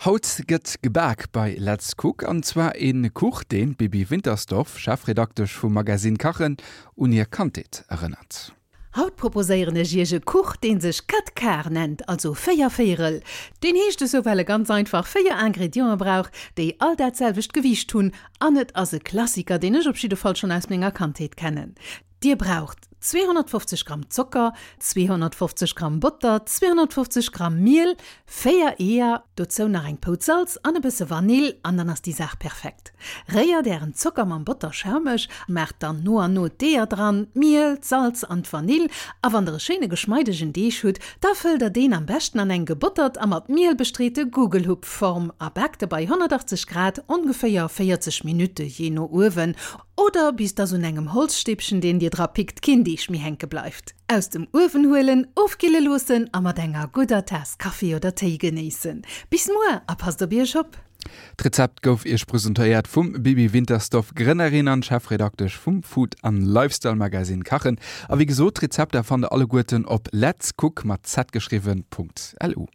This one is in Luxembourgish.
Haut gëtt gebak bei Let's Cook an zwar een Kuch deen d'Bibi Wintersdorf, Chefredaktesch vum Magazine Kachen, un hir Kandheet erënnert. Haut proposéieren ech iech e Kuch deen sech Quatre Quarts nennt, also 4 Véierel. Deen heescht esou well e ganz einfach 4 Ingrediente brauch, déi all dat selwecht Gewiicht hunn an et ass e Klassiker deen ech op jidde Fall schonn aus menger Kandheet kennen. Dir braucht 250 Gramm Zocker, 250 Gramm Botter, 250 Gramm Miel, 4 Eeër, dozou nach eng Pouz Salz an e bësse Vanill an dann ass déi Saach perfekt. Réiert ären Zocker mam Botter schaumeg, maacht dann no an no d'Eeër dran, d'Miel, d'Salz an d'Vanill a wann der e schéine geschmeidegen Deeg hutt, da fëllt der deen am beschten an eng gebottert a mat Miel bestreete Gugelhupfform a baakt e bei 180 Grad ongeféier 40 Minutte, jee no Uewen Oder bis dass un engem Holzstäbchen, deen dir dra pickt, keen Deeg méi hänke bleift. Aus dem Uewen huelen, ofkille loossen a mat enger gudder Taass Kaffi oder Téi genéissen. Bis muer a passt op iech op! D'Rezept gouf iech presentéiert vum Bibi Wintersdorf, Grënnerin an Chefredaktesch vum Food an Lifestyle Magazine Kachen. A wéi gesot, d'Rezepter fannt der alleguerten op letscook, mat z geschriwwen, .lu.